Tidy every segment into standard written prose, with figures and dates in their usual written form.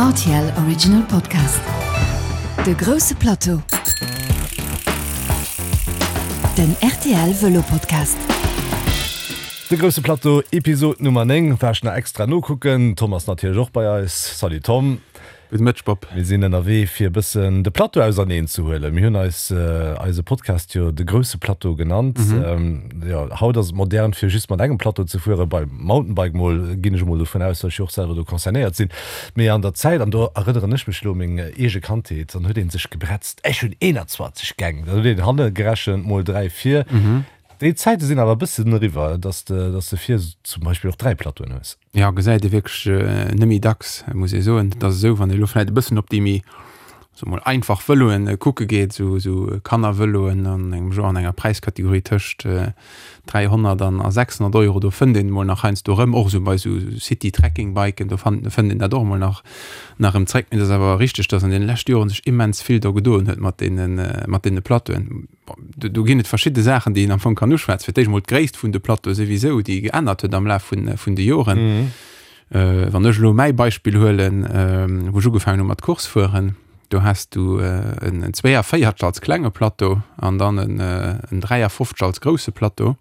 Rtl Original Podcast. De grousse Plateau. Den rtl Vëlo Podcast. De grousse Plateau, Episod Nummer 9, war ech nach extra nokucken. Tom ass natierlech och bei eis. Salut Tom. Gudde Mëtteg Bob. Mir sinn ënnerwee fir e bëssen de Plateau auserneen ze huelen. Mir hunn eis eise Podcast jo de grousse Plateau genannt. Jo, haut ass et modern fir just mat engem Plateau ze fueren, beim Mountainbike mol, ginn ech emol dovun aus, datt ech jo och selwer do concernéiert sinn. Mee an der Zäit, an do erënneren ech mech elo u meng eege Kandheet, dann huet ee sech gebretzt, ech hunn 21 Gäng, dann huet een hanne gerechent mol 3 vir. Déi Zäite sinn awer e bëssen eriwwer, datt de vir zum Beispill och 3 Plateauen hues. Jo, gesäit ee wierklech net méi dacks, muss ee soen. Et ass esou, wann ee elo vläicht e bëssen op déi méi, soe mol, einfach Vëloen kucke geet, esou esou Kannervëloen an engem Genre, an enger Präiskategorie tëscht 300 an a 600 Euro, do fënnt een emol nach heiansdo erëm, och esou bei esou City-Trekking-Biken, do fënnt een dat och emol nach nach erëm zréck. Mee et ass awer richteg, datt an deene leschte Joren sech immens vill do gedoen huet mat deene mat deene Plateauen. Bon, do ginn et verschidde Saachen, déi een am Fong kann uschwätzen. Fir d'éischt emol d'Gréisst vun de Plateaue souwisou, déi geännert huet am Laf vun, vun de Joren. Wann ech elo mäi Beispill huelen, wou ech ugefaangen hu mat Course fueren, do has du en 42 als klenge Plateau an dann en 53 als grousse Plateau.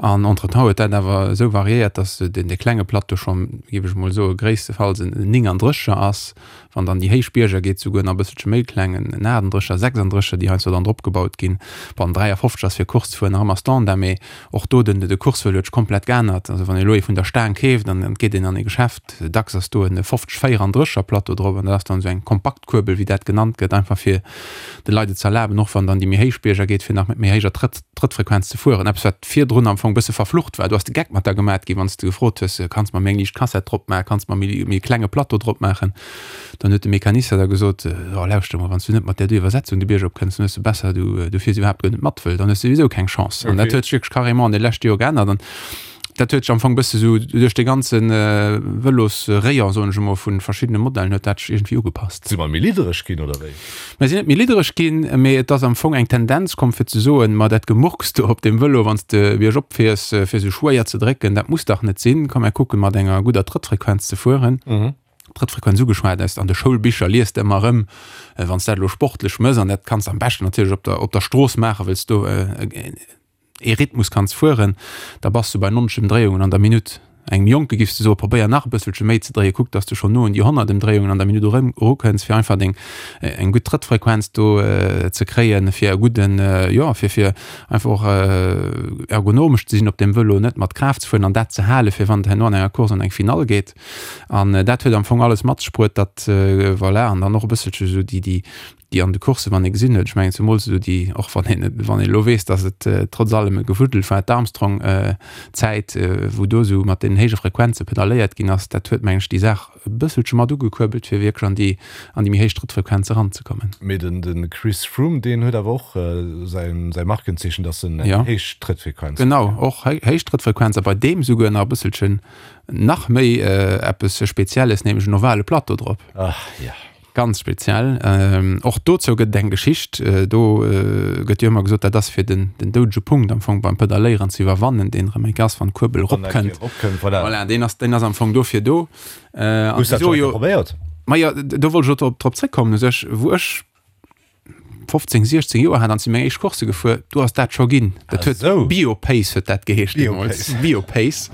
An entretemps huet dat awer esou variéiert, datt deen dee klenge Plateau schonn, géif ech emol soen, gréisstefalls en 39er ass. Wann dann déi héich Bierger geet, souguer nach e bësselche méi kleng, en 38er, 36er, déi heiansdo dann drop gebaut ginn. Bon, en 53 ass fir Course ze fueren nach ëmmer Standard, mee och do, den de Coursevëlo huet sech komplett geännert. Also wann ee elo ee vun der Staang keeft an et geet een an ee Geschäft, dacks ass do en 50 34er Plateau drop an dat ass dann esou eng kompakt Kuerbel, wéi dat genannt gëtt, einfach fir de Leit et ze erlaben, och wann dann déi méi héich Bierger geet, fir nach mat méi héijer Trëtt Trëttfrequenz ze fueren, eppes wat virdrun am Fong bësse verflucht war. Du has de Geck mat der gemat ginn, wann s de gefrot hues, kanns mer méi eng liicht Kassett drop maachen, kanns mer méi méi klenge Plateau drop maachen. Dann huet de Mecanicien da gesot, oh lauschter mol, wann s du net mat där do Iwwersetzung de Bierg op kënns, dann hues de besser du du fiers iwwerhaapt guer net mat, wëll dann hues de souwisou keng Chance. An dat huet sech wierklech carrément an de leschte Joer geännert an dat huet sech am Fong bësse sou duerch de ganze Vëlosrayon, soen ech emol, vu verschiddene Modellen huet dat sech iergendwéi ugepasst. Si mer méi liddereg ginn, oder wéi? Mer sinn net méi liddereg ginn, mee et ass am Fong eng Tendenz komm fir ze soen, ma dat Gemurks do op dem Vëlo, wann s de biergop fiers, fir esou schwéier ze drécken, dat muss dach net sinn. Komm mer kucken, mat enger gudder Trëttfrequenz ze fueren. Trëttfrequenz ugeschwat, aus an de Schoulbicher liest de ëmmer erëm, wann s dat elo sportlech mëss, an dat kanns de am beschten natierlech op der op der Strooss maachen, wëll s do ee Rhythmus kanns fueren, da bass du bei 90 Emdréiungen an der Minutt. Engem Jonke giffs de soen, probéier nach e bësselche méi ze dréien, kuck dass de schonn no un déi 100 Emdréiungen an der Minutt erukënns, fir einfach deng eng gutt Trëttfrequenz do ze kréien, fir e gudden, jo, fir fir einfach och ergonomesch ze sinn op deem Vëlo, net mat Kraaft ze fueren an dat ze halen, fir wann et herno an enger Course an eng Finall geet. An dat huet am Fong alles mat sech bruet, datt, voilà, an dann och e bësselche sou déi déi déi an de Coursen, wann ee gesinn huet, ech mengen zemools esou déi, och wann een, wann een elo weess, datt et trotz allem e Gewuddel war, d'Armstrong-Zäit, wou do esou mat deenen héije Frequenze pedalléiert ginn ass, dat huet, mengen ech, déi Saach e bësselche mat ugekuerbelt, fir wierklech an déi, an déi méi héich Trëttfrequenze eranzekommen. Mee den, de Chris Froome, deen huet awer och säin, säi Markenzeechen, datt en eng héich Trëttfrequenz huet. Genau, och héich Trëttfrequenz a bei deem souguer nach e bësselchen nach méi eppes Spezielles, nämlech en ovale Plateau drop. Ach jo. Ganz speziell. Och dozou gëtt et eng Geschicht. Do gëtt jo ëmmer gesot, dat ass fir den doudege Punkt am Fong beim Pedalléieren ze iwwerwannen, deen erëm enk ass, wann d'Kuerbel eropkënnt. Voilà, deen ass, deen ass am Fong dofir do. Hues du dat schonn eng Kéier probéiert? Majo, do wollt ech och drop zréckkommen u sech, wou ech 15, 16 Joer hat an si meng éischt Course gefuer, do ass dat scho ginn. Dat huet ah, Biopace huet dat geheescht deemools. Biopace.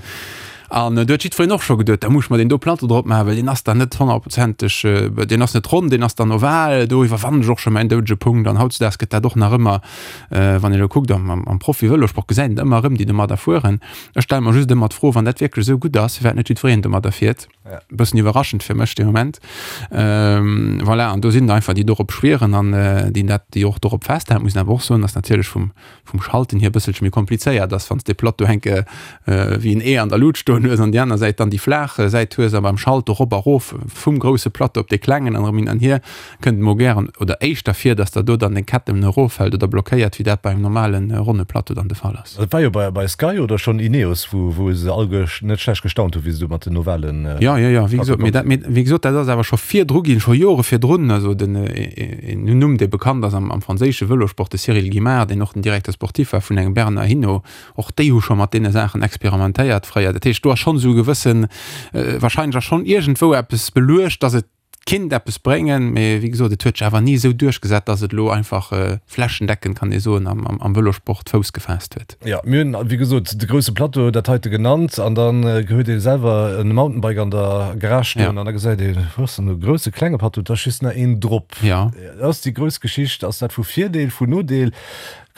An äh, do huet jiddwereen och scho geduet, da muss mer den do Platte drop maachen, well deen ass dann net honnertprozenteg, äh, deen ass net ronn, deen ass dann oval, do iwwerwannen ech och scho mäin doudege Punkt. An hautzudags gëtt dat och nach ëmmer, äh, wann een elo kuckt am, am, am Profi-Vëlosport gesäit een ëmmer erëm, déi domadder fueren. Ech stelle mer just ëmmer d'Fro, wann dat wierklech esou gutt ass, firwat net jiddwereen domadder fiert. Ja. Bëssen iwwerraschend fir mech de Moment. Ähm, voilà, an do sinn einfach déi dorop schwieren an äh, déi dat déi och dorop festhalen, muss awer och soen, dass natierlech vum, vum Schalten hier bësselche méi komplizéiert ass, wann s de Plateau henke äh, wéi en E an der Lut stoen hues an déi aner Säit dann déi flaach äh, Säit hues a beim Schalten rop a rof vum grousse Plateau op dee klengen an erëm hin an hier, kënnt mol gären oder éischter vir, dass der do dann deng Ketten eroffält oder blockéiert, wéi dat bei engem normalen äh, ronne Plateau dann de Fall ass. Dat war jo bei bei Sky oder schonn Ineos, wou wou se all net schlecht gestaunt hu wéi se do mat den ovalen Ja, ja, ja, wéi gesot, mee dat, mee wéi gesot, dat ass awer scho virdru ginn, scho Jore virdrun. Also den een Numm, dee bekannt ass am am franséische Vëlosport, de Cyril Guimard, deen och den Directeur sportif war vun engem Bernard Hinault, och déi hu scho mat deene Saachen experimentéiert fréier. Dat heescht, do. do ass schonn esou e gewëssen, wahrscheinlech ass schonn iergendwou eppes beluecht, dass et kinnt eppes bréngen, mee wéi gesot, et huet sech awer ni esou duerchgesat, dass et elo einfach flächendeckend, kann ee soen, am Vëlosport Fouss gefaasst huet. Jo, mir hunn, wéi gesot, de grousse Plateau, dat heite genannt, an dann huet ee selwer e Mountainbike an der Garage stoen an da gesäit ee, wou ass denn do grousse, klenge Plateau, da ass just nach een drop. Jo. Ass déi grouss Geschicht, ass dat vu Virdeel, vu Nodeel?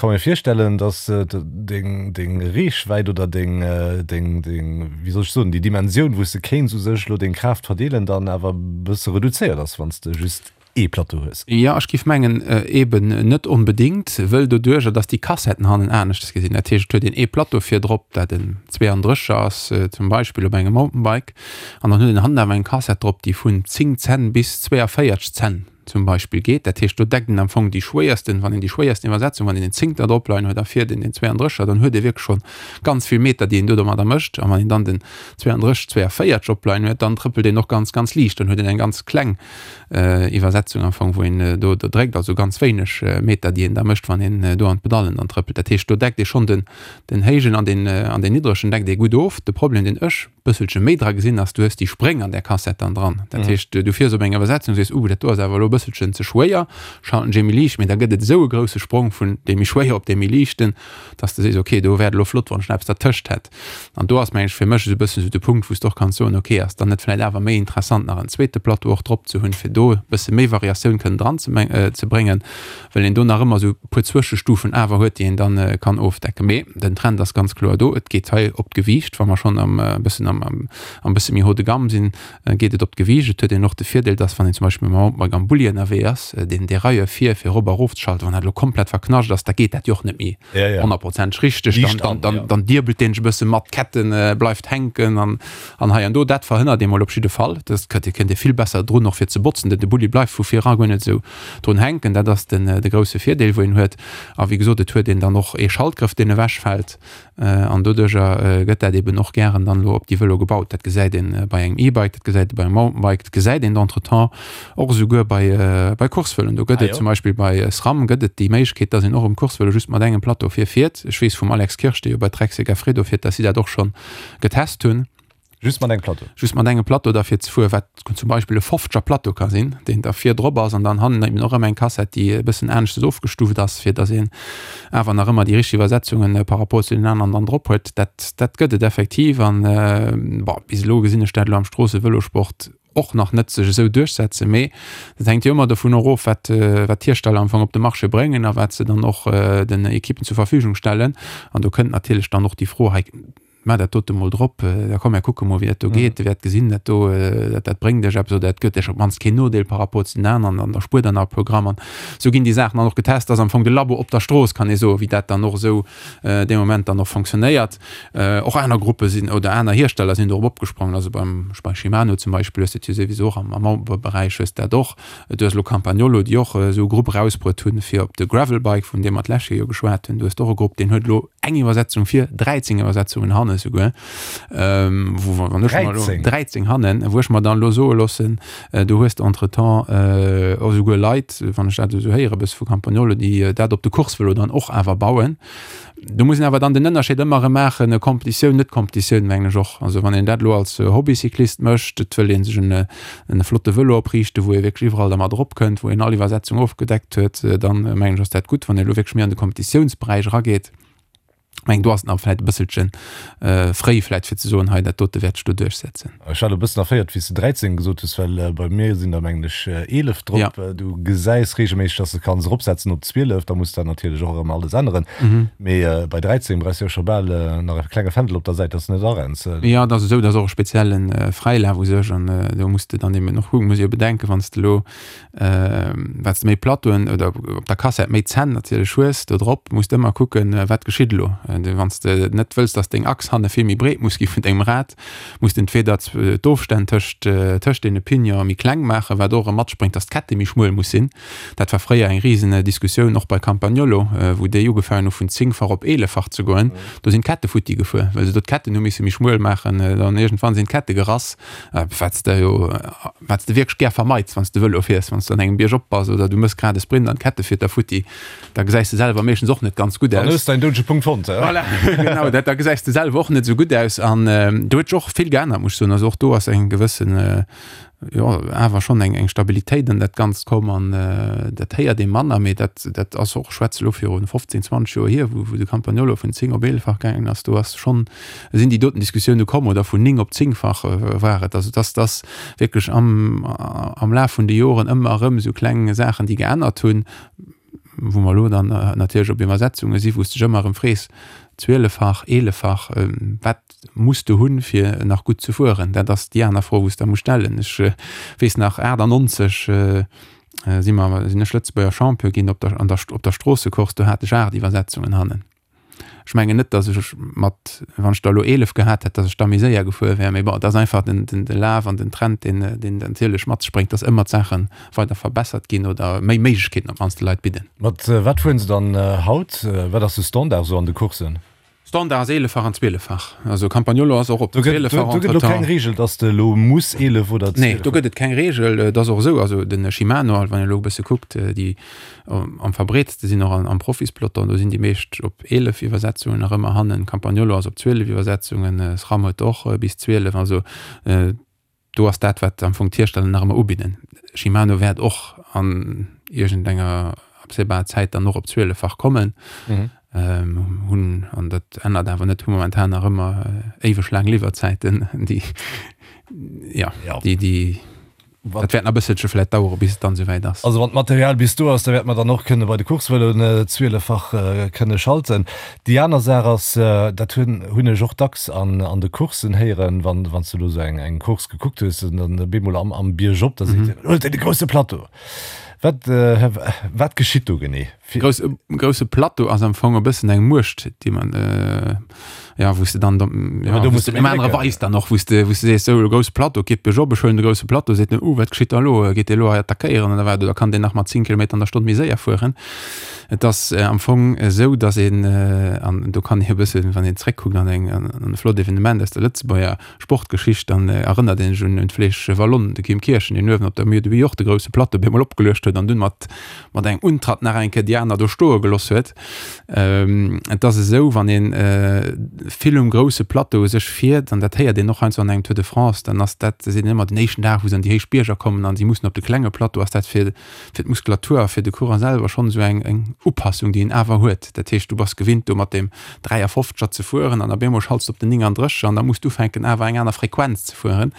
Ka mir virstellen, dass deng deng Reechwäit oder deng deng deng, wéi soll ech soen, déi Dimensioun, wou s de kéints u sech elo deng Kraaft verdeelen, dann awer e bësse reduzéiert ass, wann s de just ee Plateau hues. Jo, ech géif mengen, eben net onbedéngt, wëll doduerjer, dass déi Kassetten hannen aneschtes gesinn, dat heescht, et huet een ee Plateau virdrop, dat en 32er ass zum Beispill op engem Mountainbike, an dann huet een hannen awer eng Kassett drop, déi vun 10 Zenn bis 42 Zenn zum Beispill geet. Dat heescht, do deckt een am Fong déi schwéiersten, wann een déi schwéiersten Iwwersetzung, wann een den Zéngter drop leien huet a vir den den 32er, dann huet ee wierklech schonn ganz vill Meter, déi een do domadder mécht. A wann een dann den 32, 42 opleien huet, dann trëppelt een och ganz, ganz liicht. Dann huet een eng ganz kleng Iwwersetzung am Fong, wou een do do dréckt, also ganz wéineg Meter, déi een da mécht, wann een do an d'Pedallen dann trëppelt. Dat heescht, do deckt ee schonn den den héijen an den an den niddregen deckt ee gutt of. De Problem, deen ech bësselche méi dra gesinn ass, du hues déi Spréng an där Kassett dann dran. Dat heescht, du fiers op eng Iwwersetzung, sees, uh, dat do ass awer elo e bësselchen ze schwéier, schalten ech ee méi liicht, mee da gëtt et esou e grousse Sprong vun deem méi schwéier op dee méi liichten, dass de sees, okay, do wär et elo flott, wann ech nach eppes dertëscht hätt. An do ass, meng ech, fir mech esou e bëssen esou de Punkt, wou s de och kanns soen, okay, ass dann net vläicht awer méi interessant, nach en zweete Plateau och drop ze hunn, fir do e bësse méi Variatioun kënnen dran ze ze bréngen, well een do nach ëmmer esou e puer Zwëschestufen awer huet, déi een dann kann ofdecken. Mee den Trend ass ganz kloer do, et geet hei op d'Gewiicht. Wa mer schonn am e bëssen am am bësse méi haut de gamme sinn, geet et op d'Gewiicht. Et huet een och de Virdeel, dass wann een zum Beispill mam Mountainbike am Bulli ënnerwee ass, deen Derailleur vir fir erop a erof ze schalten, wann dat elo komplett verknascht ass, da geet dat jo och net méi honnertprozenteg richteg. Dann dann dann diebelt deen sech e bësse mat, d'Ketten bleift hänken an An hei an do, dat verhënnert ee mol op jidde Fall. Dat kënnt, dir kënnt Dir vill besser drun och fir ze botzen, denn de Bulli bleift vu vir era guer net esou drun hänken. Dat ass den, de grousse Virdeel wou een huet. A wéi gesot, et huet een dann och ee Schaltgrëff deen ewech fält an doduercher gëtt dat eben och gären dann elo op déi Vëlo gebaut. Dat gesäit een bei engem E-Bike, dat gesäit ee bei engem Mountainbike, dat gesäit een entretemps och esouguer bei, bei Coursevëloen. Do gëtt et zum Beispill bei SRAM gëtt et déi Méiglechkeet, dass een och um Coursevëlo just mat engem Plateau vir fiert. Ech weess vum Alex Kirsch, dee jo bei Trek Segafredo fiert, dass si dat och schonn getest hunn. Just mat engem Plateau? Just mat engem Plateau da fir ze fueren, wat zum Beispill e fofzeger Plateau ka sinn, deen da vir drop ass an dann hannen eben och ëmmer eng Kassett, déi e bëssen aneschtes ofgestuft ass, fir dass een awer nach ëmmer déi richteg Iwwersetzungen par rapport zu den aneren dann drop huet. Dat, dat gëtt et effektiv an, bon, bis elo gesinn ech dat elo am Stroossevëlosport och nach net sech esou duerchsetzen, mee dat hänkt jo ëmmer dovun och of, wat wat d'Hiersteller am Fong op de Marché bréngen a wat se dann och den Ekippen zur Verfügung stellen. An do kënnt natierlech dann och déi Fro hei, Maach dat dote mol drop, da komm mir kucke mol wéi dat do geet, Dir wäert gesinn, dat do dat dat bréngt iech eppes oder dat gëtt iech op d'mannst keen Nodeel par rapport zu den aneren an da spuert der nach e puer Gramm. An esou ginn déi Saachen dann och getest. Dat ass am Fong de Labo op der Strooss, kann ee soen, wéi dat dann och esou dee Moment dann och fonctionnéiert. Och aner Gruppe sinn oder aner Hiersteller sinn dorop opgesprongen. Also beim bei Shimano zum Beispill hues de et jo souwisou och am am Mountainbike-Beräich hues de dat och. Du hues elo Campagnolo, déi och esou e Grupp erausbruet hunn fir op de Gravelbike, vun deem mer d'lescht Joer jo geschwat hunn. Du hues och e Grupp, deen huet elo eng Iwwersetzung vir, 13 Iwwersetzungen hanne souguer, wou wann ech mer elo 13? 13 hannen, wou ech mer dann elo soe loossen, do hues de entretemps och esouguer Leit, wann ech dat esou héiere bësse vu Campagnolo, déi dat op de Coursevëlo dann och awer bauen. Do muss een awer dann den Ënnerscheed ëmmer erëm maachen, Competitioun, net Competitioun, mengen ech och. Also wann een dat elo als Hobbycyclist mécht, et wëll ee sech en e flotte Vëlo opriichten, wou ee wierklech iwwerall dermat eropkënnt, wou een all Iwwersetzung ofgedeckt huet, dann mengen ech ass dat gutt. Wann een elo wierklech méi an de Competitiounsberäich erageet, mengen do ass et nach vläicht e bësselche fréi vläicht fir ze soen, hei dat dote wäert sech do duerchsetzen. Ech war elo e bëssen erféiert, wéi s de 13 gesot hues, well bei mir sinn der, mengen ech, 11 drop. Ja. Du gesäis reegelméisseg, dass de kanns eropsetzen op 12, da muss dat natierlech och erëm alles änneren. Mee bei 13 brauchs de jo scho bal nach e klenge Fändel op der Säit, dass de net arenns. Jo, et ass esou, et ass och e spezielle Fräilaf u sech an do muss de dann eben och kucken, muss ee jo bedenken, wann s de elo Wat s de méi Plateauen oder op der Kassett méi Zänn natierlech hues do drop, muss de ëmmer kucken, wat geschitt elo. Wann s de net wëlls, datt deng Achs hanne vill méi breet muss gi vun dengem Rad, muss de entweeder d'Ofstänn tëscht tëscht deene Pignonen méi kleng maachen, wat och erëm matspréngt, datt d'Kette méi schmuel muss sinn. Dat war fréier eng risen Diskussioun, och bei Campagnolo, wou déi ugefaangen hu vun zéngfach op eeleffach ze goen. Do sinn d'Kette futti gefuer, well se do d'Ketten hu misse méi schmuel maachen. Dann iergendwann sinn d'Kette gerass. Wat s de jo, wat s de wierklech gär vermeits, wann s de Vëlo fiers, wann s de an engem Bierg op bass oder du mëss grad e Sprint an d'Kette fiert der futti, da gesäis de selwer meeschtens och net ganz gutt aus. Dann hues de däin doudege Punkt fonnt. Voilà, genau, dat, da gesäis de selwer och net esou gutt aus. An do huet sech och vill geännert, muss ech soen. Also och do ass eng gewëssen, jo, awer schonn eng, eng Stabilitéit an dat Ganzt komm. An dat héiert ee manner, mee dat, dat ass och, ech schwätze elo viru 15, 20 Joer hier, wou, wou de Campagnolo vun 10 op 11 fach gaangen ass, do ass schonn, sinn déi doten Diskussioune komm, oder vun 9 op 10 fach war et. Also dass, dass wierklech am, am Laf vun de Joren ëmmer erëm esou kleng Saachen, déi geännert hunn, wou mer elo dann natierlech op Iwwersetzunge si wou s de dech ëmmer erëm frees, zwieleffach, eeleffach, wat muss de hunn, fir nach gutt ze fueren? Dat ass déi aner Fro, wou s de muss stellen. Ech weess nach, 98 si mer, sinn ech Lëtzebuerger Champion ginn op der, an der, op der Stroossecourse, do hat ech 8 Iwwersetzungen hannen. Ech mengen net, datt ech mat, wann ech der elo 11 gehat hätt, datt ech da méi séier gefuer wär. Mee bon, et ass einfach den, den, de Laf an den Trend, deen, deen natierlech mat sech bréngt, datt ëmmer d'Saache weider verbessert ginn oder méi Méiglechkeeten op d'mannst de Leit bidden. Mat wat fueren se dann haut? Wat ass de Standard esou an de Courssen? Standard ass 11-fach an 12-fach. Also Campagnolo ass och op Do gëtt, do, do gëtt elo keng Reegel, datt de elo muss 11 oder 12. Nee, do gëtt et keng Reegel. Et ass och esou, also de Shimano, wann een elo e bësse kuckt, déi Am verbreetste sinn och am Profispeloton, do sinn déi meescht op 11 Iwwersetzungen nach ëmmer hannen. Campagnolo ass op 12 Iwwersetzungen, SRAM huet och bis 12. Also do ass dat, wat am Fong d'Hiersteller nach ëmmer ubidden. Shimano wäert och an iergendenger absehbarer Zäit dann och op 12-fach kommen. Hunn, an dat ännert awer net, hu momentan nach ëmmer éiweg laang Liwwerzäiten, déi, jo, déi, déi. Dat wäert nach e bësselche vläit dauere bis et dann esouwäit ass. Also wann d'Material bis do ass, da wäerte mer dann och kënne bei de Coursevëloen zwieleffach kënne schalten. Déi aner Saach ass, dat hunn hunn ech och dacks an an de Courssen héieren, wann wann s de elo esou eng eng Course gekuckt hues an dann bemol am am Biergop, da seet een, Huelt dee grousse Plateau! Wat wat geschitt do genee? Grouss, grousse Plateau ass am Fong e bëssen eng Muecht, déi man, ja, wou s de dann, ja, do muss de dem anere weis dann och, wou s de, wou s de sees, sou, grousse Plateau, geet biergop, ech huelen de grousse Plateau, seet en, uh, wat geschitt da elo, geet dee elo hei attackéieren oder wat, oder kann deen nach mat 10 Kilometer an der Stonn méi séier fueren? Et ass am Fong esou, datt een, an do kann ee e bëssen, wann een zréckkuckt an eng, an e flott Evenement aus der Lëtzebuerger Sportgeschicht, dann erënnert een sech un d'Flèche Wallonne, de Kim Kirchen, deen uewen op der Mur de Huy och de grousse Plateau bemol opgeluecht huet an dunn mat mat engem Untratt nach eng Kéier déi aner do stoe geloss huet. Et ass esou, wann ee vill um grousse Plateau u sech fiert, an dat héiert een och heiansdo an engem Tour de France, dann ass dat, seet een ëmmer, den éischten Dag, wou se an déi héich Bierger kommen an si mussen op de klenge Plateau, ass dat fir fir d'Muskulatur a fir de Coureur selwer schonn esou eng eng Upassung, déi en awer huet. Dat heescht, du bass gewinnt do mat deem 53er ze fueren an op eemol schalts de op den 39er an da muss du ufänken awer eng aner Frequenz ze fueren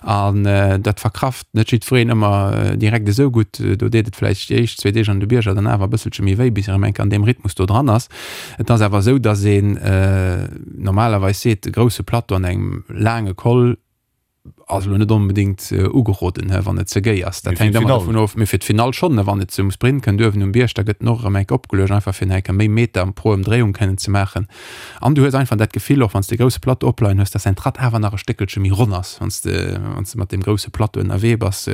an dat verkraft net jiddwereen ëmmer direkt esou gutt. Do deet et vläicht déi éischt zwee Deeg an de Bierger dann awer e bësselche méi wéi, bis erëm eng Kéier an deem Rhythmus do dran ass. Et ass awer esou, datt een normalerweis seet, e grousse Plateau an engem laange Col, Ass elo net onbedéngt ugeroden, wann et ze géi ass. Dat hänkt ëmmer dovun of. Mee fir d'Finall schonn, wann et zum Sprint kënnt uewen um Bierg, da gëtt en och erëm eng Kéier opgeluecht, einfach fir nach eng Kéier méi Meter pro Ëmdréiung kënnen ze maachen. An du hues einfach dat Gefill, och wann s de e grousse Plateau opleien hues, dass däin Tratt awer nach e Stéckelche méi ronn ass, wann s de, wann s de mat deem grousse Plateau ënnerwee bass.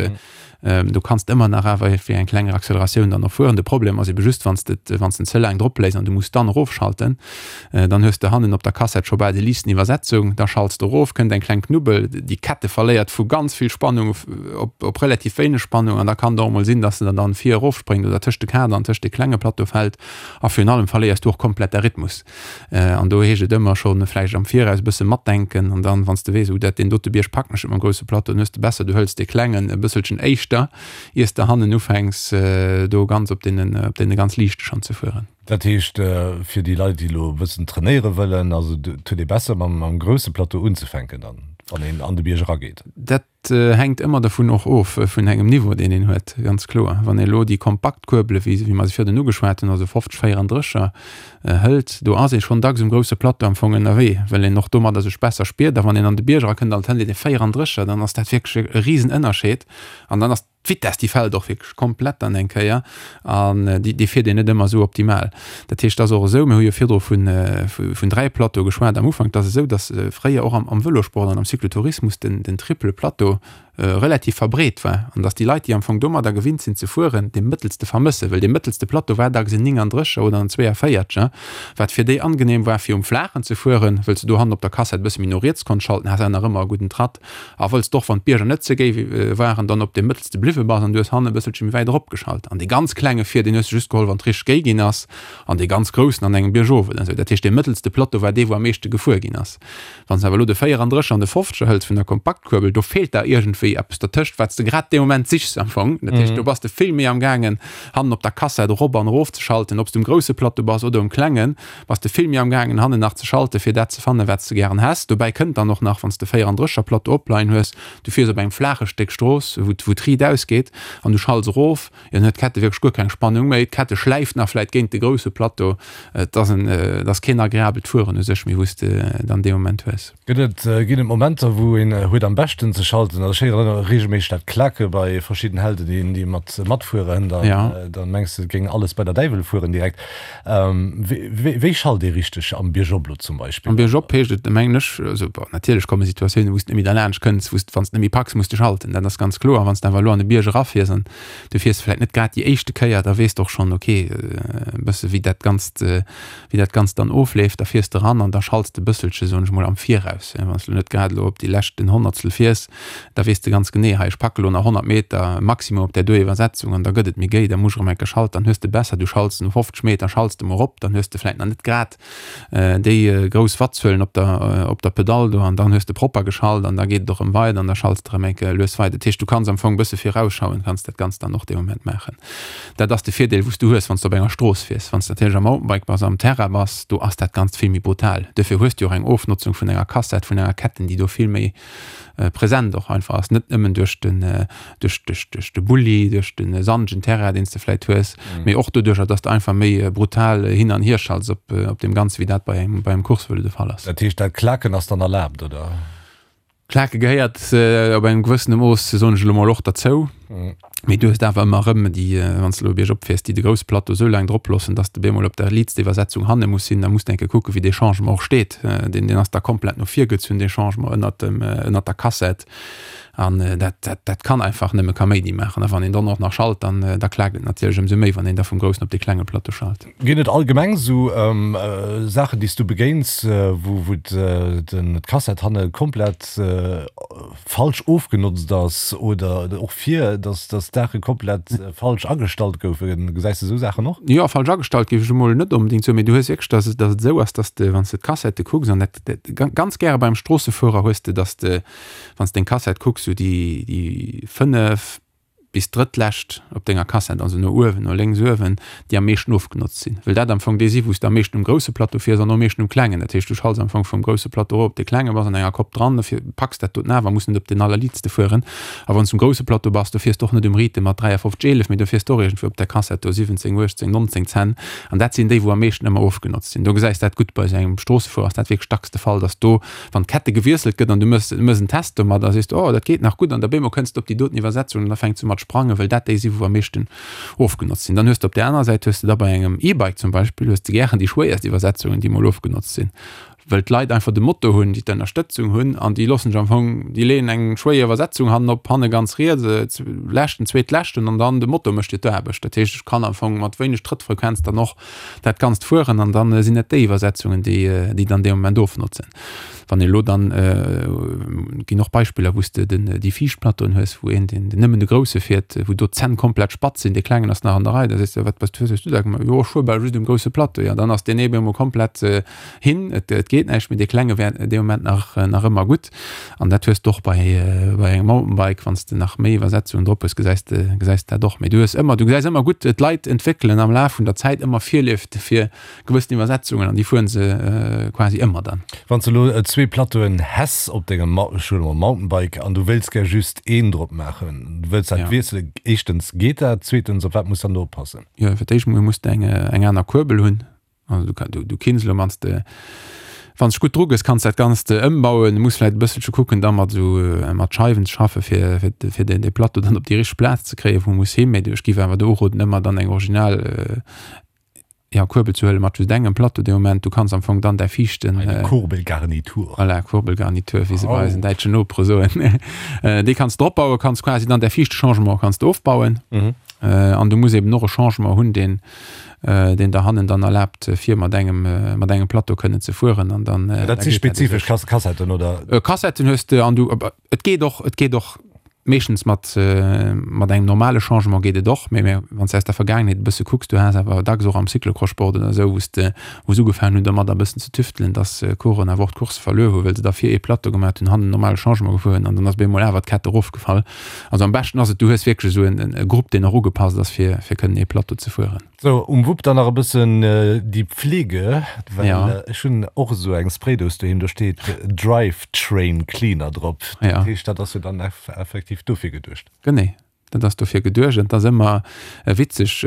Du kanns ëmmer nach awer fir eng kleng Acceleratioun dann och fueren. De Problem ass ebe just, wann s de wann s den ze laang drop léis an du muss dann erofschalten, dann hues de hannen op der Kassett scho bal déi liichten Iwwersetzung, da schalts de erof, kënnt eng kleng Knubbel, déi Kette verléiert vu ganz vill Spannung op op relativ wéineg Spannung an da kann et och emol sinn, dass se der dann vir erofspréngt oder tëscht de Kader an tëscht de klenge Plateau fält a virun allem verléiers du och komplett däi Rhythmus. An do heescht et ëmmer scho vläicht am Viraus e bësse matdenken an dann, wann s de weess, oh dat deen dote Bierg packen ech net mam grousse Plateau, dann hues de besser, du hëls dee klengen e bësselchen éischter, iers de hannen ufänks do ganz op deenen, op deene ganz liichte schonn ze fueren. Dat heescht, fir déi Leit, déi elo e bëssen trainéiere wëllen, also et huet ee besser mam grousse Plateau unzefänken dann, wann een an de Bierg erageet? Dat hänkt ëmmer dervun och of, vun engem Niveau, deen een huet, ganz kloer. Wann ee elo déi kompakt Kuerbele, wéi wéi mer se virdrun ugeschwat hunn, also 50, 34er, hëlt, do ass ee schonn dacks um grousse Plateau am Fong ënnerwee, well een och domadder sech besser spiert. A wann een an de Bierg erakënnt an et hëlt een e 34er, dann ass dat wierklech e Risenënnerscheed an dann ass d'Vitess, déi fält och wierklech komplett dann eng Kéier an déi, déi fiert een net ëmmer esou optimal. Dat heescht, et ass och esou, mir hu jo virdru vun, vun 3 Plateaue geschwat am Ufank, et ass esou, datt fréier och am, am Vëlosport an am Cyclotourismus den, den triple Plateau. relativ verbreet war an datt déi Leit, déi am Fong domadder gewinnt sinn ze fueren, dee mëttelste vermëssen, well dee mëttelste Plateau war dacks en 39er oder en 42er, wat fir déi angenehm war fir um Flaachen ze fueren, wëll s de do hannen op der Kassett e bësse méi no riets konns schalten, has awer nach ëmmer e gudden Tratt a wëll s de och, wann d'Bierger net ze géi waren, dann op deem mëttelste bliwwe bass an du hues hannen e bësselche méi wäit eropgeschalt. An dee ganz klenge vir, deen hues de just geholl, wann et richteg géi ginn ass an dee ganz groussen an engem Biergof oder esou. Dat heescht, dee mëttelste Plateau war dee, wou am meeschte gefuer ginn ass. Wann s de awer elo de 34 an de 50er hëls vun der Kompaktkuerbel, do feelt der iergendwéi eppes dertëscht, wat s de grad dee Moment sichs am Fong. Dat heescht, do bass de vill méi am gaangen, hannen op der Kassett erop an erof ze schalten, ob s de um grousse Plateau bass oder um klengen, bass de vill méi am gaangen, hannen nach ze schalten, fir dat ze fannen, wat s de gären häss. Dobäi kënnt dann och nach, wann s de 34er Plateau opleien hues, du fiers op engem flaache Stéck Strooss, wou d'Riit ausgeet, an du schalts erof, Jo, dann huet d'Kette wierklech guer keng Spannung méi. D'Kette schläift nach vläit géint de grousse Plateau. Et ass en, et ass keen agreabelt Fueren u sech méi, wou s de dann dee Moment hues. Gëtt et, ginn et Momenter, wou een huet am beschten ze schalten? Also ech héieren ëmmer reegelméisseg dat Klake bei verschidden Helden, déi, déi mat matfueren, dann, Ja. dann mengs de, et géing alles bei der Däiwel fueren direkt. Wéi, wéi schalt ee richteg am Biergop lo zum Beispill? Am Biergop heescht et, mengen ech, also bon, natierlech komme Situatiounen, wou s de net méi derlaanscht kënns, wou s de, wann s de net méi packs, muss de schalten, dat ass ganz kloer. Wann s de awer elo an e Bierg erafiers an du fiers vläit net grad déi éischte Kéier, da weess de och schonn, ok, e bësse wéi dat Ganzt, wéi dat Ganzt dann ofleeft, da fiers de eran an da schalts de e bësselche, soen ech mol, am Viraus. Wann s de elo net grad elo op déi leschten Honnertstel fiers, da weess de ganz genee, hei ech packe lo nach 100 Meter maximum op där do Iwwersetzung an da gëtt et méi géi, da muss ech erëm eng Kéier schalten, dann hues de besser, du schalts no 50 Meter schalts de mol erop, dann hues de vläit nach net grad déi grouss Wattzuelen op der op der Pedall do an dann hues de propper geschalt an da geet et och erëm weider an da schalts de erëm eng Kéier lues weider. Dat heescht, du kanns am Fong e bësse virausschauend kanns dat Ganzt dann och dee Moment maachen. Dat ass de Virdeel wou s du hues, wann s de op enger Strooss fiers. Wann s de natierlech am Mountainbike bass, am Terrain bass, do ass dat Ganzt vill méi brutal. Duerfir hues du och eng Ofnotzung vun enger Kassett, vun enger Ketten, déi do vill méi present och einfach ass, net nëmmen duerch den duerch duerch duerch de Bulli, duerch de sandegen Terrain, deen s de vläit hues, mee och doduercher, dass de einfach méi brutal hin an hier schalts op op deem Ganze wéi dat bei engem bei engem Coursevëlo de Fall ass. Dat heescht, dat Klaken ass dann erlaabt, oder? Klake gehéiert op engem gewëssene Mooss, soen ech elo mol, och derzou. Mee du hues awer ëmmer erëm déi, wann s de elo biergop fiers, déi de grousse Plateau esou laang drop loossen, dass de bemol op der liitster Iwwersetzung hanne muss sinn. Da muss de eng Kéier kucken, wéi dee Changement och steet. Deen, deen ass da komplett no vir gezunn, dee Changement ënnert dem, ënnert der Kassett. An dat, dat, dat kann einfach nëmme Kaméidi maachen. A wann een dann och nach schalt, dann, da klaakt et natierlech ëmsou méi, wann een da vum groussen op dee klenge Plateau schalt. Ginn et allgemeng esou Saachen, déi s du begéins, wou, wou d'Kassett hanne komplett falsch ofgenotzt ass oder och vir, dass dass d'Saache komplett falsch agestallt goufen? Gesäis de esou Saachen och? Jo, falsch agestallt géif ech emol net onbedéngt soen, mee du hues wierklech, dass et dass et esou ass, dass de, wann s de d'Kassette kucks, an dat dat ganz gäre beim Stroossefuerer hues de, dass de, wann s deng Kassett kucks, sou déi déi 5 bis drëttlescht op denger Kassett, also no uewen, no lénks uewen, déi am meeschten ofgenotzt sinn, well dat am Fong déi si wou s de am meeschten um grousse Plateau fiers an am meeschten um klengen. Dat heescht, du schalts am Fong vum grousse Plateau erop op dee klengen, bass an enger Kopp dran, dofir packs dat doten awer, muss net op den allerliitste fueren. A wann s du um grousse Plateau bass, do fiers de och net um Rythme mat 53, 11, mee do fiers de och iergendwou op der Kassett do 17, 18, 19 Zenn. An dat sinn déi, wou am meeschten ëmmer ofgenotzt sinn. Do gesäis dat gutt, bei esou engem Stroossefuerer ass dat wierklech dacks de Fall, dass do Wann d'Kette gewiesselt gëtt an du mëss mëss en Test domat a sees, oh dat geet nach gutt an da bémol kënns de op déi doten Iwwersetzung an da fänkt se u mat sprangen, well dat déi si wou am meeschten ofgenotzt sinn. Dann hues de op där anerer Säit hues de da bei engem E-Bike zum Beispill hues de gären déi schwéierst Iwwersetzungen déi mol ofgenotzt sinn, well d'Leit einfach de Moto hunn, déi d'Ënnerstëtzung hunn an déi loossen sech am Fong, déi leeën eng schwéier Iwwersetzung hannen op, hanne ganz riets, leschten, zweetleschten an dann de Moto mécht dir d'Aarbecht. Dat heescht ech kann am Fong mat wéineg Trëttfrequenz dann och dat Ganzt fueren an dann sinn et déi Iwwersetzungen, déi déi dann dee Moment ofnotzen. Wann ee lo dann, ginn och Beispiller, wou s de den déi viischt Plateauen hues, wou een deen nëmmen de grousse fiert, wou do d'Zänn komplett spatz sinn, dee klengen ass nach an der Rei, da sees de, wat bass du, hues du da gemaach? Jo, ech fuer bal just um grousse Plateau. Jo, dann ass deen ee bemol komplett hin, et et geet näischt méi, dee klenge wär dee Moment nach nach ëmmer gutt. An dat hues de och bei bei engem Mountainbike, wann s de nach méi Iwwersetzungen drop hues, gesäis de gesäis de dat och. Mee du hues ëmmer, du gesäis ëmmer gutt, d'Leit entwéckelen am Laf vun der Zäit ëmmer Virlieft fir gewëssen Iwwersetzungen an déi fueren se quasi ëmmer dann. Wann s de elo zwee Plateauen häss op dengem, ech huele mol Mountainbike, an du wéilts gär just een drop maachen, du wëlls dat wiesselen, éischtens geet dat, zweetens op wat muss dann do oppassen? Jo, fir d'éischt mol muss de eng eng aner Kuerbel hunn. Also du, du, du kinns lo wanns de wanns de gutt dru gëss, kanns dat Ganzt ëmbauen. Du muss vläit e bësselche kucken da mat esou mat Scheiwen ze schaffe fir fir fir den de Plateau dann op déi richteg Plaz ze kréien, wou e muss hin. Mee ech géif awer do uroden, ëmmer dann eng original. Jo, Kuerbel ze huelen mat just engem Plateau dee Moment. Du kanns am Fong dann däi viischten. Eine Kurbelgarnitur. Voilà, Kurbelgarnitur, wéi se bei eisen däitschen Nopere soen. Déi kanns de opbauen, kanns quasi dann däi viischte Changement kanns de ofbauen. An du muss eben och e Changement hunn, deen, deen der hannen dann erlaabt, fir mat engem, mat engem Plateau kënnen ze fueren. An dann. Dat si spezifesch Kassetten, oder? Kassetten hues de an du, et geet och, et geet och. Meeschtens mat mat engem normale Changement geet et och, mee mä wann s de aus der Vergaangenheet e bësse kucks, du has awer dacks och am Cyclocross-Sport oder esou, wou s de wou se ugefaangen hunn domadder e bëssen ze tüftelen, dass Coureuren awer och d'Course verluer hu well se da vir ee Plateau gemat hunn, hannen normale Changement gefuer hunn an dann ass op eemol awer d'Kett erofgefall. Also am beschten ass et, du hues wierklech esou en e Grupp, deen och ugepasst ass fir fir kënnen ee Plateau ze fueren. Sou, um Wupp dann nach e bëssen déi Pflege, well ja. ech hunn och esou eng Spraydous doheem, do steet Drive Train Cleaner drop. Ja. Dat heescht, dat ass jo dann effektiv dofir geduecht. Genee, dat ass dofir geduecht. An et ass ëmmer witzeg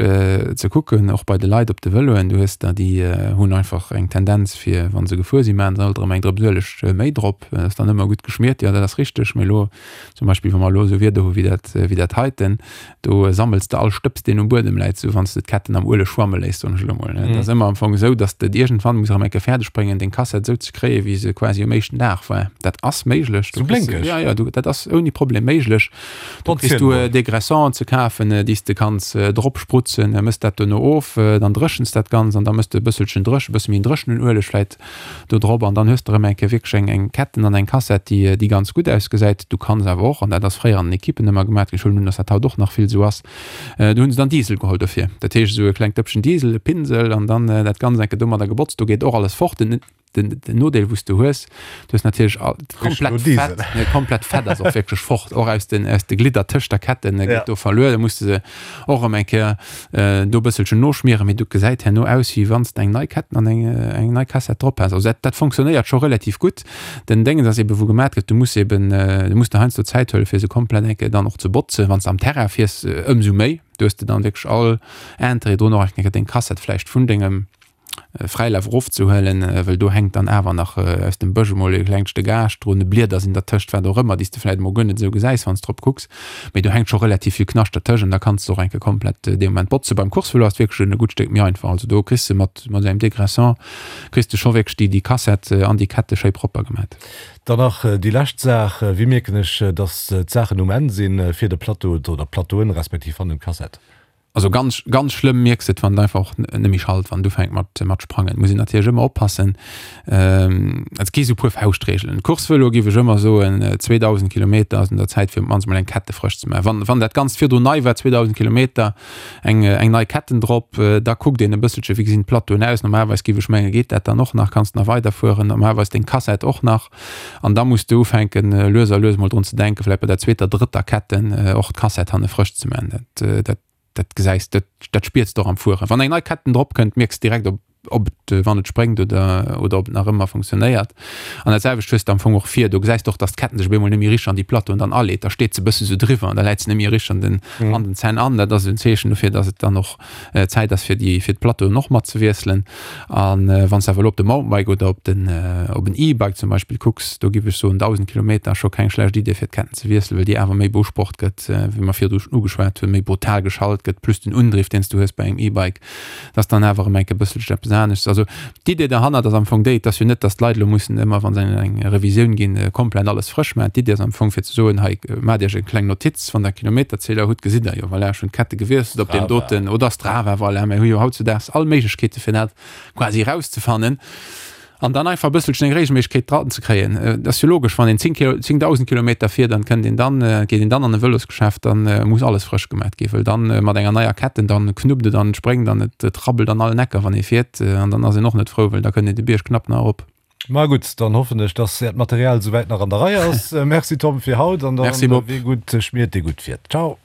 ze kucken, och bei de Leit op de Vëloen, du hues der, déi hunn einfach eng Tendenz fir, wa se gefuer sinn, maachen se alt erëm eng Drëps Ueleg méi drop. Dat ass dann ëmmer gutt geschmiert, jo dat ass richteg, mee elo zum Beispill, wa mer elo esou Wieder hu wéi dat, wéi dat heiten, Do sammels de all Stëbs, deen um Buedem läit, sou wann s de d'Ketten am Ueleg schwamme léiss, soen ech elo mol. Et ass ëmmer am Fong esou, dass de et iergendwann muss erëm eng Kéier fäerdeg bréngen, deng Kassett esou ze kréien, wéi se quasi um éischten Dag war. Dat ass méiglech. Sou blénkeg? Jo, jo, du, dat ass ouni Problem méiglech. Do kriss du Dégraissant ze kafen, déi s de kanns drop sprutzen, mëss dat dono of, dann dréchens dat Ganzt an da mëss de e bësselchen dréch, e bësse méi en dréchenen Ueleg vläit do drop an dann hues de erëm eng Kéier wierklech eng eng Ketten an eng Kassett, déi déi ganz gutt ausgesäit. Du kanns awer och, an dat ass fréier an den Ekippen ëmmer gemaat ginn, ech huelen un, dass dat haut och nach vill esou ass, do hunn se dann Diesel geholl dofir. Dat heescht esou e klengt Dëppchen Diesel, e Pinsel an dann dat Ganzt eng Kéier domadder gebotzt, do geet och alles fort. Den den den Nodeel wou s du hues, du hues natierlech all komplett Fett, ne, komplett Fett ass och wierklech fort, och aus den aus de Glidder tëscht der Ketten geet do verluer, da muss de se och erëm eng Kéier do e bësselchen noschmieren, mee du gesäit herno aus wéi wann s de eng nei Ketten an eng eng nei Kassett drop häss. Also dat dat fonctionnéiert scho relativ gutt. Den Déngens ass eben wou gemat gëtt, du muss eben du muss der heiansdo Zäit huele fir se komplett eng Kéier dann och ze botzen. Wann s de am Terrain fiers ëmsou méi, do hues de dann wierklech all Interêt drun och eng Kéier deng Kassett vläicht vun dengem Fräilaf erofzehuelen, well do hänkt dann awer nach aus dem Bësch emol e klengt Stéck Aascht drun, Blieder sinn dertëscht, wat och ëmmer, déi s de vläicht emol guer net esou gesäis, wann s drop kucks. Mee do hänkt scho relativ vill Knascht dertëscht an da kanns de och eng Kéier komplett dee Moment botzen. Beim Coursevëlo ass et wierklech e gutt Stéck méi einfach. Also do kriss de mat mat engem Dégraissant kriss de scho wierklech déi déi Kassett an déi Kette schéi propper gemat. Dann nach déi lescht Saach, Wéi mierken ech, dass d'Saachen um Enn sinn fir de Plateau oder d'Plateauen, respektiv hannen d'Kassett? Also ganz ganz schlëmm mierks de et wann et einfach och net méi schallt, wann et ufänkt mat mat sprangen. Muss een natierlech ëmmer oppassen. Et gi sou puer Fauschtreegelen. Coursevëlo géif ech ëmmer soen, 2.000 Kilometer ass un der Zäit fir op d'mannst mol eng Kette frësch ze maachen. Wann wann dat Ganzt virdrun nei war, 2.000 Kilometer, eng eng nei Ketten drop, da kuckt een e bësselche wéi gesinn d'Plateauen aus. Normalerweis géif ech mengen, geet dat dann och nach, kanns de nach weiderfueren. Normalerweis deng Kassett och nach. An da muss de ufänken, lues a lues mol drun ze denken, vläicht bei der zweeter, drëtter Ketten och d'Kassett hanne frësch ze man. Dat, dat, dat gesäis de, dat spiers de och am Fueren. Wann eng nei Ketten drop kënnt, mierks de direkt, ob, ob et, wann et spréngt oder, oder ob et nach ëmmer funktionéiert. An dat selwecht hues de am Fong och vir. Do gesäis de och, dass d'Ketten sech op eemol net méi richteg an déi Plateauen dann aleet. Da steet se e bësse sou driwwer an da läit se net méi richteg an den, an den Zänn an. Dat ass en Zeechen dofir, dass et dann och Zäit ass fir déi fir d'Plateauen och mat ze wiesselen. An wann s de awer elo op de Mountainbike oder op den op en E-Bike zum Beispill kucks, do giff ech soen 1.000 Kilometer ass scho keng schlecht Idee fir d'Ketten ze wiesselen, well déi awer méi beusprocht gëtt, wéi mer virdru schonn ugeschwat hunn, méi brutal geschalt gëtt, plus den Undriff deen s du hues bei engem E-Bike, dat ass dann awer erëm enke bësselchen eppes aneschts. Also D'Idee derhannert ass am Fong déi, et ass jo net, datt d'Leit elo mussen ëmmer, wa se an eng Revisioun ginn, komplett alles frësch maachen. D'Idee ass am Fong fir ze soen, hei maacht Iech eng kleng Notiz, wann Der Kilometerzähler hutt, gesitt Der jo, voilà, ech hunn d'Kette gewiesselt op deem doten, oder Strava, voilà, mir hu jo hautzudaags all Méiglechkeete fir dat quasi erauszefannen. An dann einfach e bësselchen eng Regelméissegkeet dran ze kréien. Et ass jo logesch, wann een 10 Kilo, 10.000 Kilometer fiert, dann kënnt een dann, geet een dann an e Vëlosgeschäft, dann muss alles frësch gemat ginn, wëll dann mat enger neier Ketten, dann knuppt et an et spréngt an et rabbelt an allen Ecker, wann ee fiert. An dann ass een och net frou, wëll da kënnt een de Bierg knapp nach erop. Ma gutt, dann hoffen ech, dass Äert Material souwäit nach an der Rei ass. Merci Tom fir haut an dann, Merci Bob. wee gutt schmiert, dee gutt fiert. Ciao.